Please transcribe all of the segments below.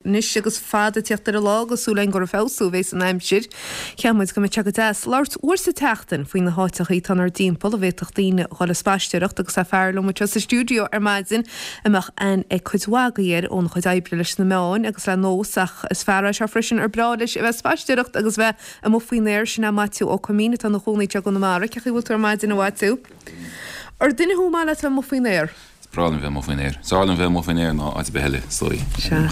Anois agus fad ag tíocht ar an lá agus súil againn gur ag feabhsú a bhéas an aimsir, cheap muid go mbeadh sé go deas labhairt uair sa tseachtain faoi na háiteachaí atá inár dtimpeall a bhféadfadh daoine dhul ag spaisteoireacht agus tá fear liom anseo sa stiúideo ar maidin a mbeadh aithne ag cuid mhaith agaibh air óna chuid oibre leis na meáin agus le Nós ach is fear é seo freisin ar breá leis a bheith ag spaisteoireacht agus bheith amuigh faoin aer, sin é Maitiú Ó Coimín atá ina chónaí anseo i gConamara. Cén chaoi a bhfuil tú ar maidin a Mhaitiú? Ar duine thú ar maith leat a bheith amuigh faoin aer? Is breá liom bheith amuigh faoin aer. Is fearr liom bheith amuigh faoin aer ná áit ar bith eile, is dóigh. Sea.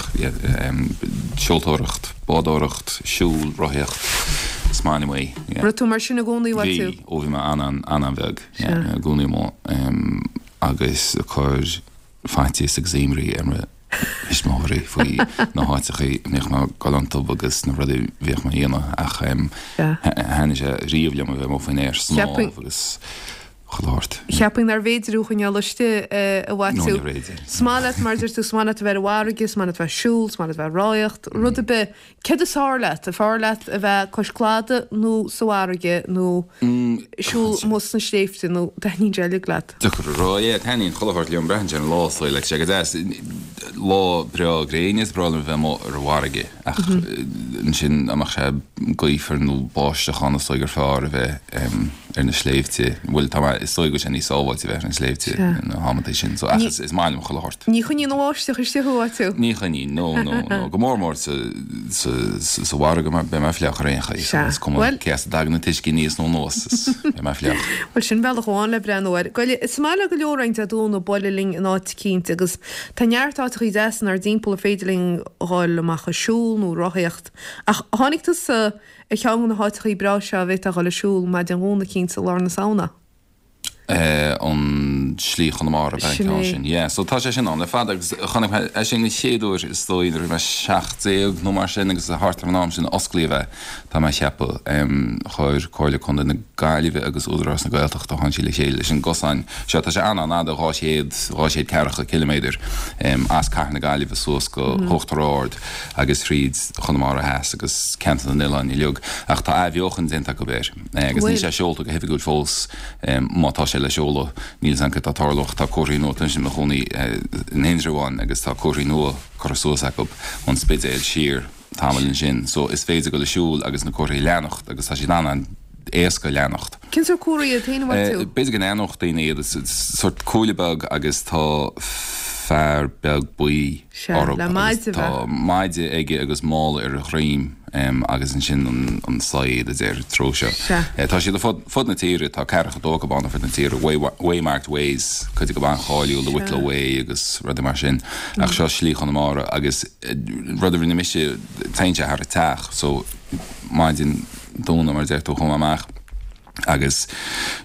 Seoltóireacht, bádóireacht, siúl, rothaíocht, is maith liom é. Raibh tú mar sin i gcónaí, a Mhaitiú? Bhí, ó bhí mé an-an-bheag. Sea. I gcónaí amuigh agus ag cur faitíos agus imní ar mo thuismitheoirí faoi na háiteachaí a mbíodh mé ag dul iontu agus na rudaí a bhíodh mé a dhéanamh ach thaitnigh sé riamh liom a bheith amuigh faoin aer, snámh agus chuile shórt. Cheapfainn nárbh fhéidir thú a choinneáil istigh, a Mhaitiú. No, níorbh fhéidir. Is maith leat, mar a deir tú, is maith leat a bheith ar an bhfarraige, is maith leat a bheith ag siúl, is maith leat a bheith ag rothaíocht, rud ar bith. Céard is fearr leat? An fearr leat a bheith cois cladaigh nó sa bhfarraige nó siúl amuigh sna sléibhte nó taitníonn sé uilig leat? Deacair a rá, yeah, taitníonn chuile shórt liom, braitheann sé ar an lá is dóigh, like, sé go deas, lá breá gréine is breá liom a bheith amuigh ar an bhfarraige ach ansin dá mbeadh sé gaofar nó báisteach ann is dóigh gur fearr a bheith ar na sléibhte, bhuel tá mé, is dóigh go bhfuil sé níos sábháilte a bheith ar na sléibhte na hamanntaí sin, so ach is, is maith liom chuile shórt. Ní choinníonn an bháisteach istigh thú, a Mhaitiú? Ní choinníonn, no, no, no, go mór mór sa, sa, sa bhfarraige mar beidh mé fliuch ar aon chaoi, so is cuma cé as a dtagann an t-uisce aníos nó anuas, is beidh mé fliuch. Bhuel sin bealach amháin le breathnú air. Goile, is maith le go leor againn Dé Domhnaigh bualadh linn in áit eicínt agus tá neart áiteachaí deasa inár dtimpeall ar féidir linn dhul amach ag siúl nó rothaíocht ach tháinig tusa Ar cheann de na háiteachaí breá seo a bhféadfá a dhul ag siúl maidin Dhomhnaigh eicínt i lár na Samhna. an Slí Chonamara ab ea an Sin ceann é. sin. Yeah, so tá sé sin ann le fada agus chonaic mé é sin an chéad uair is dóigh nuair a bhí mé 17 nó mar sin agus thart ar an am sin a osclaíodh é, tá mé a cheapadh. Chuir Comhairle Contae na Gaillimhe agus Údarás na Gaeltachta, tháinig siad le chéile leis an gcosán seo. Tá sé an-an-fhada, 200, 200 ceathracha ciliméadar as Cathair na Gaillimhe suas go hUachtar Ard. agus thríd Chonamara Theas agus ceantar na n-oileán uilig, ach tá athbheochan déanta acu air agus níl sé seolta go hoifigiúil fós, má tá sé le seoladh, níl 'fhios a'm céard atá ag tarlú ach tá comharthaí nua, táimse i mo chónaí in Indreabhán agus tá comharthaí nua curtha suas acu ón Spidéal siar tamall ansin, so is féidir dul ag siúl agus na comharthaí a leanacht agus tá siad an-an-éasca a leanacht. Cén sórt comharthaí iad féin, a Mhaitiú? B'fhéidir go n-aithneodh daoine iad, is sórt cuaille beag agus tá fear beag buí Sea, orthu le agus maide tá bheith. maide aige agus mála ar a dhroim agus ansin an saighead a deir an treo seo. Sea. Tá siad ar fud, fud na tíre, tá ceathracha dó acu ann ar fud na tíre, Way, Waymarked Ways, cuid acu an-cháiliúil, the Wicklow Sea. Way agus rudaí mar sin. Ach seo Slí Chonamara agus rud a rinne mise, téann sé thar an teach so maidin Domhnaigh mar a deir tú, chuaigh mé amach agus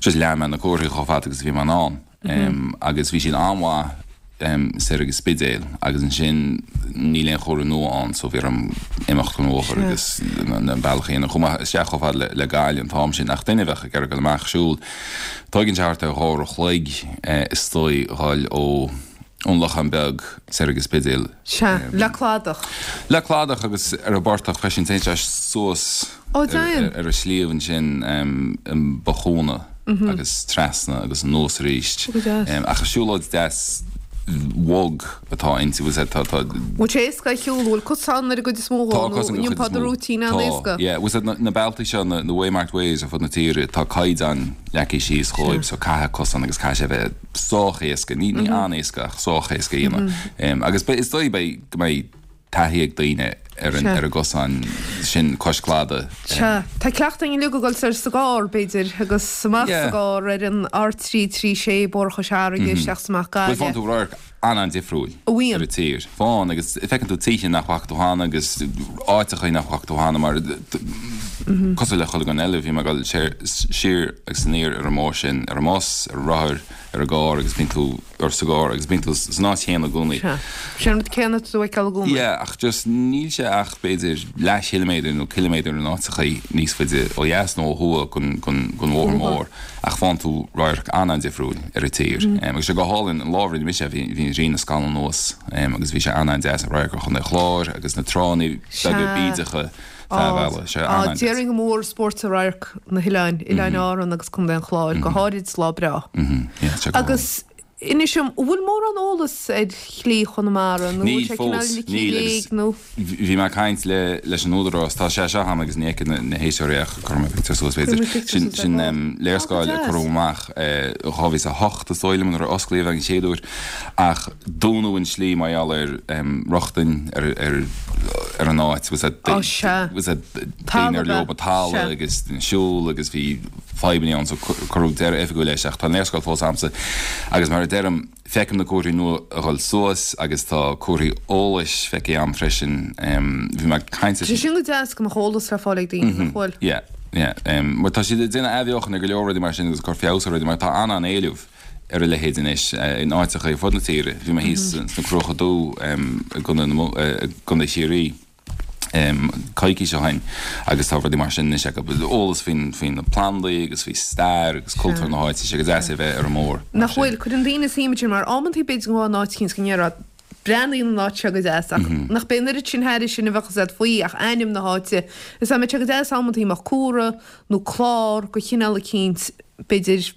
just lean mé na comharthaí chomh fada agus a bhí mé in ann agus bhí siad an-mhaith soir ag an Spidéal agus ansin níl aon chomhartha nua ann so bhí orm imeacht den bhóthar agus an bealach a dhéanamh. Chuaigh mé isteach chomh fada le Gaillimh an t-am sin ach duine a bheadh ag iarraidh dul amach ag siúl, tóigeann sé thart ar dhá uair a chloig is dóigh dhul ó ón Lochán Beag soir ag an Spidéal. Sea, le cladach. Le cladach agus ar an bportach freisin, téann sé suas Ó, déan! ar an sliabh ansin i mBothchúna agus trasna agus anuas arís. Ó, go deas. Ach is siúlóid deas bhog atá inti, bhfuil 's a'd, tá, tá. Bhfuil sé éasca a shiúl, bhfuil cosán ar an gcuid is mó dhó Tá nó cosán ar an an chuid is iompá do mó. rúitín Tá, an-éasca? yeah. Bhfuil 's a'd, na bealtaí seo, na Waymarked Ways ar fud na tíre, tá caighdeán leagtha síos dhóibh so caithfidh cosán agus caithfidh sé a bheith sách éasca, ní an-éasca ach sách éasca a dhéanamh. Agus is dóigh beidh, go mbeidh taithí ag daoine ar an, ar an gcosán sin cois cladaigh. Sea. Tá cleachtadh againn uilig ag dul soir sa gcarr, b'fhéidir, agus amach sa Yeah. gcarr ar an R336, Bóthar Chois Fharraige, isteach is amach Bhuel, Gaillimh. faigheann tú radharc an-an-difriúil A bhíonn. ar an tír. Faigheann, agus feiceann tú tithe nach bhfaca tú cheana agus áiteacha nach bhfaca tú cheana mar cosúil le chuile dhuine eile, bhí mé ag dul siar agus aniar ar an mbóthar sin, ar an mbus, ar an rothar, ar an gcarr agus bíonn tú, or sa gcarr agus bíonn tú san áit chéanna i gcónaí. Sea. Sin an rud céanna atá tú a fheiceáil i gcónaí. Yeah, ach just níl sé ach b'fhéidir leathchiliméadar nó ciliméadar in áiteachaí níos faide ó dheas nó ó thuaidh den, den, den bhóthar mór ach faigheann tú radharc an-an-difriúil ar an tír. Agus sé go hálainn an lá a rinne mise é, bhí, bhí an ghrian ag scalladh anuas agus bhí sé an-an-deas an radharc ar Chontae an Chláir agus na tránna beaga Sea. bídeacha feadh an bhealaigh. Sé an-an-deas. Déarfainn gur mór spóirt radharc na hoileáin, Oileáin Árann agus Contae an Chláir, go háirid lá breá. Yeah, sé go hálainn. Agus. Inis dom, an bhfuil mórán eolas ar Shlí Chonamara nó an bhfuil Níl sé cineál fós, ligthe i níl léig agus nó? bhí mé ag caint le leis an Údarás, tá sé seo agam agus ní fheicfidh na héisteoirí ach cuirfidh mé pictiúr suas Cuirfidh b'fhéidir. muid pictiúr Sin suas ar sin ball. Á, go léarscáil a deas. cuireadh amach i 2008 is dóigh liom nuair a osclaíodh é an chéad uair ach dúnadh an slí mar gheall ar rochtain ar ar ar an áit was that Á, sea. was that daoine Talamh ar ab leo ea? ba talamh Sea. agus siúl agus bhí fadhbanna ann so cuireadh deireadh oifigiúil leis ach tá an léarscáil fós agamsa agus mar a deirim feicim na comharthaí nua a dhul suas agus tá comharthaí eolais feicthe agam freisin. Bhí mé ag caint Tá sé sin go deas go mbeadh eolas le fáil ag daoine, nach bhfuil? Yeah, yeah. Mar tá siad ag déanamh athbheochan ar go leor rudaí mar sin agus ag cur feabhas ar rudaí mar tá an-an-éileamh ar a leithéid anois in áiteacha ar fud na tíre. Bhí mé thíos sna Cruacha Dubha i gContae Chiarraí. coicís ó shin agus tá rudaí mar sin anois acu, eolas faoi na plandaí agus faoi stair agus cultúr na háite, tá sé go deas é bheith ar an mbóthar mar Nach sin. bhfuil? Cuireann daoine suim ansin mar amantaí b'fhéidir go bhfuil an áit eicínt go ndéarfá breathnaíonn an áit seo go deas ach nach b'é an oiread sin thairis sin a bheadh fhios agat faoi ach ainm na háite. Is dá mbeadh sé go deas amantaí mbeadh comhartha nó clár de chineál eicínt b'fhéidir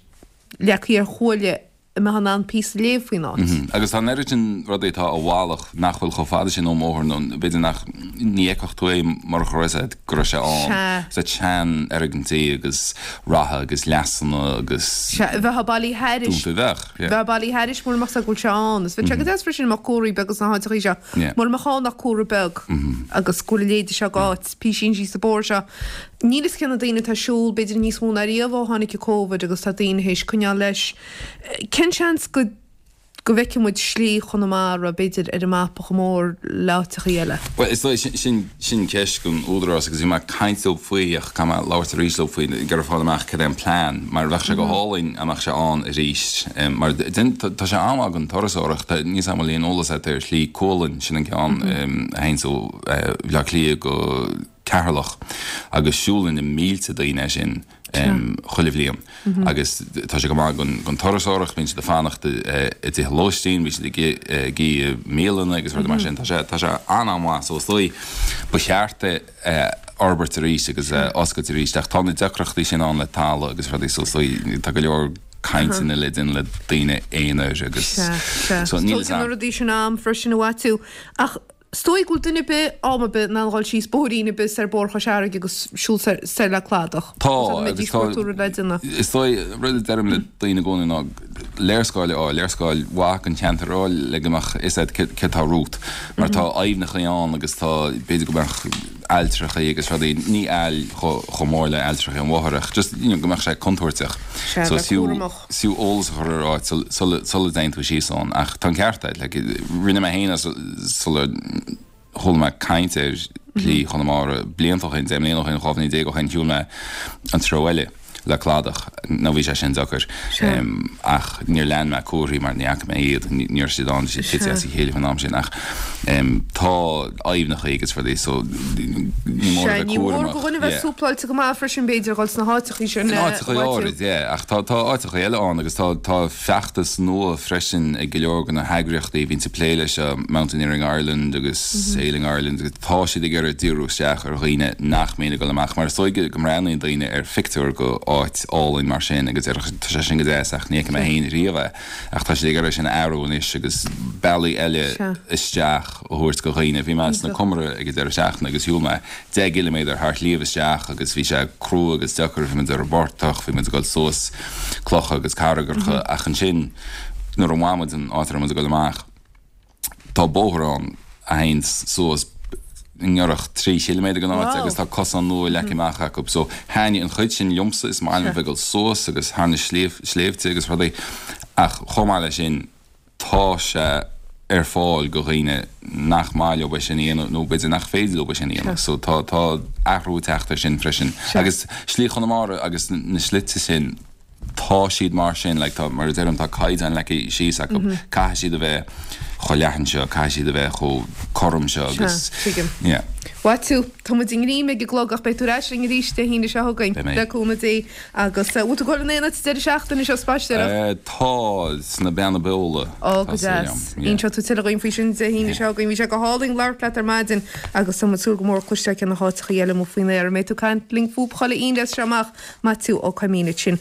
leagtha ar chuaille a mbeifeá in ann píosa a léamh faoin áit. Agus tá an oiread sin rudaí atá i bhfalach nach bhfuil chomh fada sin ón mbóthar nó b'fhéidir nach, ní fheicfeadh tú é murach go raibh fhios agat go raibh sé ann. Sea. Sea, seanfhoirgintí agus ratha agus leasanna agus. Sea, bheifeá bailithe thairis. Dúnta, bheadh, yeah. Bheifeá bailithe thairis mura mbeadh fhios agat go bhfuil sé ann. Is bheadh sé go deas freisin mbeadh comharthaí beaga sna háiteachaí seo. Yeah. Mura mbeadh ann ach comhartha beag agus go bhfuil a leithéide seo d'áit, písín síos an bóthar seo. Níl fhios cé na daoine atá ag siúl, b'fhéidir níos mó ná riamh ó tháinig an Covid agus tá daoine théis coinneáil leis. Cén seans go go bhfeicfidh muid Slí Chonamara, b'fhéidir, ar an mapa chomh mór le áiteachaí eile? Bhuel, is dóigh, sin sin ceist don Údarás agus bhí mé ag caint leo faoi ach caithfidh mé labhairt arís leo faoi, ag iarraidh fáil amach cad é an plean mar bheadh sé go hálainn dá mbeadh sé ann arís mar tá sé an-mhaith don turasóireacht, níl 's agam an bhfuil aon eolas agat ar Shlí Cualann, sin an ceann a théanns ó Bhaile Átha Cliath go Ceatharlach agus siúlann na mílte daoine é sin chuile bhliain agus tá sé go maith don turasóireacht, bíonn siad ag fanacht i dtithe lóistín, bíonn siad ag ithe i mbialanna agus rudaí mar sin, tá sé tá sé an-an-mhaith so is dóigh ba cheart é a fhorbairt arís agus a oscailt arís ach tá na deacrachtaí sin ann le talamh agus rudaí so is dóigh tá go leor cainteanna le déanamh le daoine aonair agus so níl 'fhios a'm. Tógann na rudaí sin am freisin a Mhaitiú ach Is dóigh go bhfuil duine ar bith, am ar bith, in ann dhul síos bóithrín ar bith soir Bóthar Chois Fharraige agus siúl soir, soir le cladach. Tá, agus tá, is dóigh, rud a deirim le daoine i gcónaí ná léarscáil a fháil, léarscáil mhaith den cheantar a fháil le go mbeadh fhios agat céard atá romhat. Mar tá aibhneacha ann agus tá, b'fhéidir go mbeadh ailltreachaí agus rudaí, ní aill chomh mór le ailltreachaí an bhóthair ach just, you know, go mbeadh sé contúirteach. Sea, bheith cúramach. Is fiú eolas a chur ar áit sula dtéann tú síos ann. Ach tá an ceart agat, like, rinne mé féin é sular chuala mé caint ar Shlí Chonamara blianta ó shin, 10 mbliana ó shin, 12 bhliain ó shin, shiúil mé an treo eile le cladach, nó bhí sé sin deacair. Ach níor lean mé comharthaí mar ní fhaca mé iad, ní raibh siad ann, bhí siad tite as a chéile faoin am sin. Ach tá aibhneacha agus rudaí so ní mór a Sea, bheith ní mór cúramach. do dhuine bheith Yeah. súpláilte go maith freisin b'fhéidir a dhul sna háiteachaí sin In áiteachaí áirid, yeah, ach tá tá áiteachaí eile ann agus tá tá feachtas nua freisin ag go leor de na heagraíochtaí a bhíonns ag plé leis seo, Mountaineering Ireland agus Sailing Ireland agus tá siad ag iarraidh díriú isteach ar dhaoine nach mbíonn ag dul amach mar is dóigh go mbreathnaíonn daoine ar phictiúr go áit álainn mar sin agus deir tá sé sin go deas ach ní fheicfidh mé féin riamh é ach tá siad ag iarraidh sin a athrú anois agus bealaí eile isteach a thabhairt go dhaoine. Bhí mé sna Comaraigh ag an deireadh seachtaine agus shiúil mé 10 gciliméadar thar shliabh isteach agus bhí sé crua agus deacair, bhí muid ar an bportach, bhí muid ag dul suas clocha agus carraigeacha ach ansin nuair a bhain muid an áit a raibh muid ag dul amach tá bóthar ann a théann suas i ngiorracht 3 chiliméadar den áit agus tá cosán nua leagtha amach acu so thaitnigh an chuid sin liomsa, is maith liom a bheith ag dul suas agus thar na sléibhte agus rudaí ach chomh maith leis sin tá sé ar fáil go dhaoine nach maith leo é sin a dhéanamh nó b'fhéidir nach féidir leo é sin a dhéanamh. So tá tá athrú ag teacht air sin freisin. Agus Slí Chonamara agus na slite sin, tá siad mar sin, like tá, mar a deirim, tá caighdeán leagtha síos acu, caithfidh siad a bheith chomh leathan seo, caithfidh siad a bheith chomh cothrom seo agus, Tuigim. yeah. Mhaitiú, tá muid i ngreim ag an gclog ach beidh tú ar ais linn arís Dé hAoine seo chugainn. Beidh mé. Le cúnamh Dé. Agus bhfuil tú ag dul in aon áit an deireadh seachtaine seo, spaisteoireacht? Tá, sna Beanna Beola. Ó, go deas. Inseoidh tú tuilleadh dhúinn faoi sin Dé hAoine seo chugainn. Bhí sé go hálainn labhairt leat ar maidin agus tá muid ag súil go mór cloisteáil cé na háiteachaí eile amuigh faoin aer a mbeidh tú ag caint linn fúthu chuile Aoine as seo amach. Maitiú Ó Coimín ansin.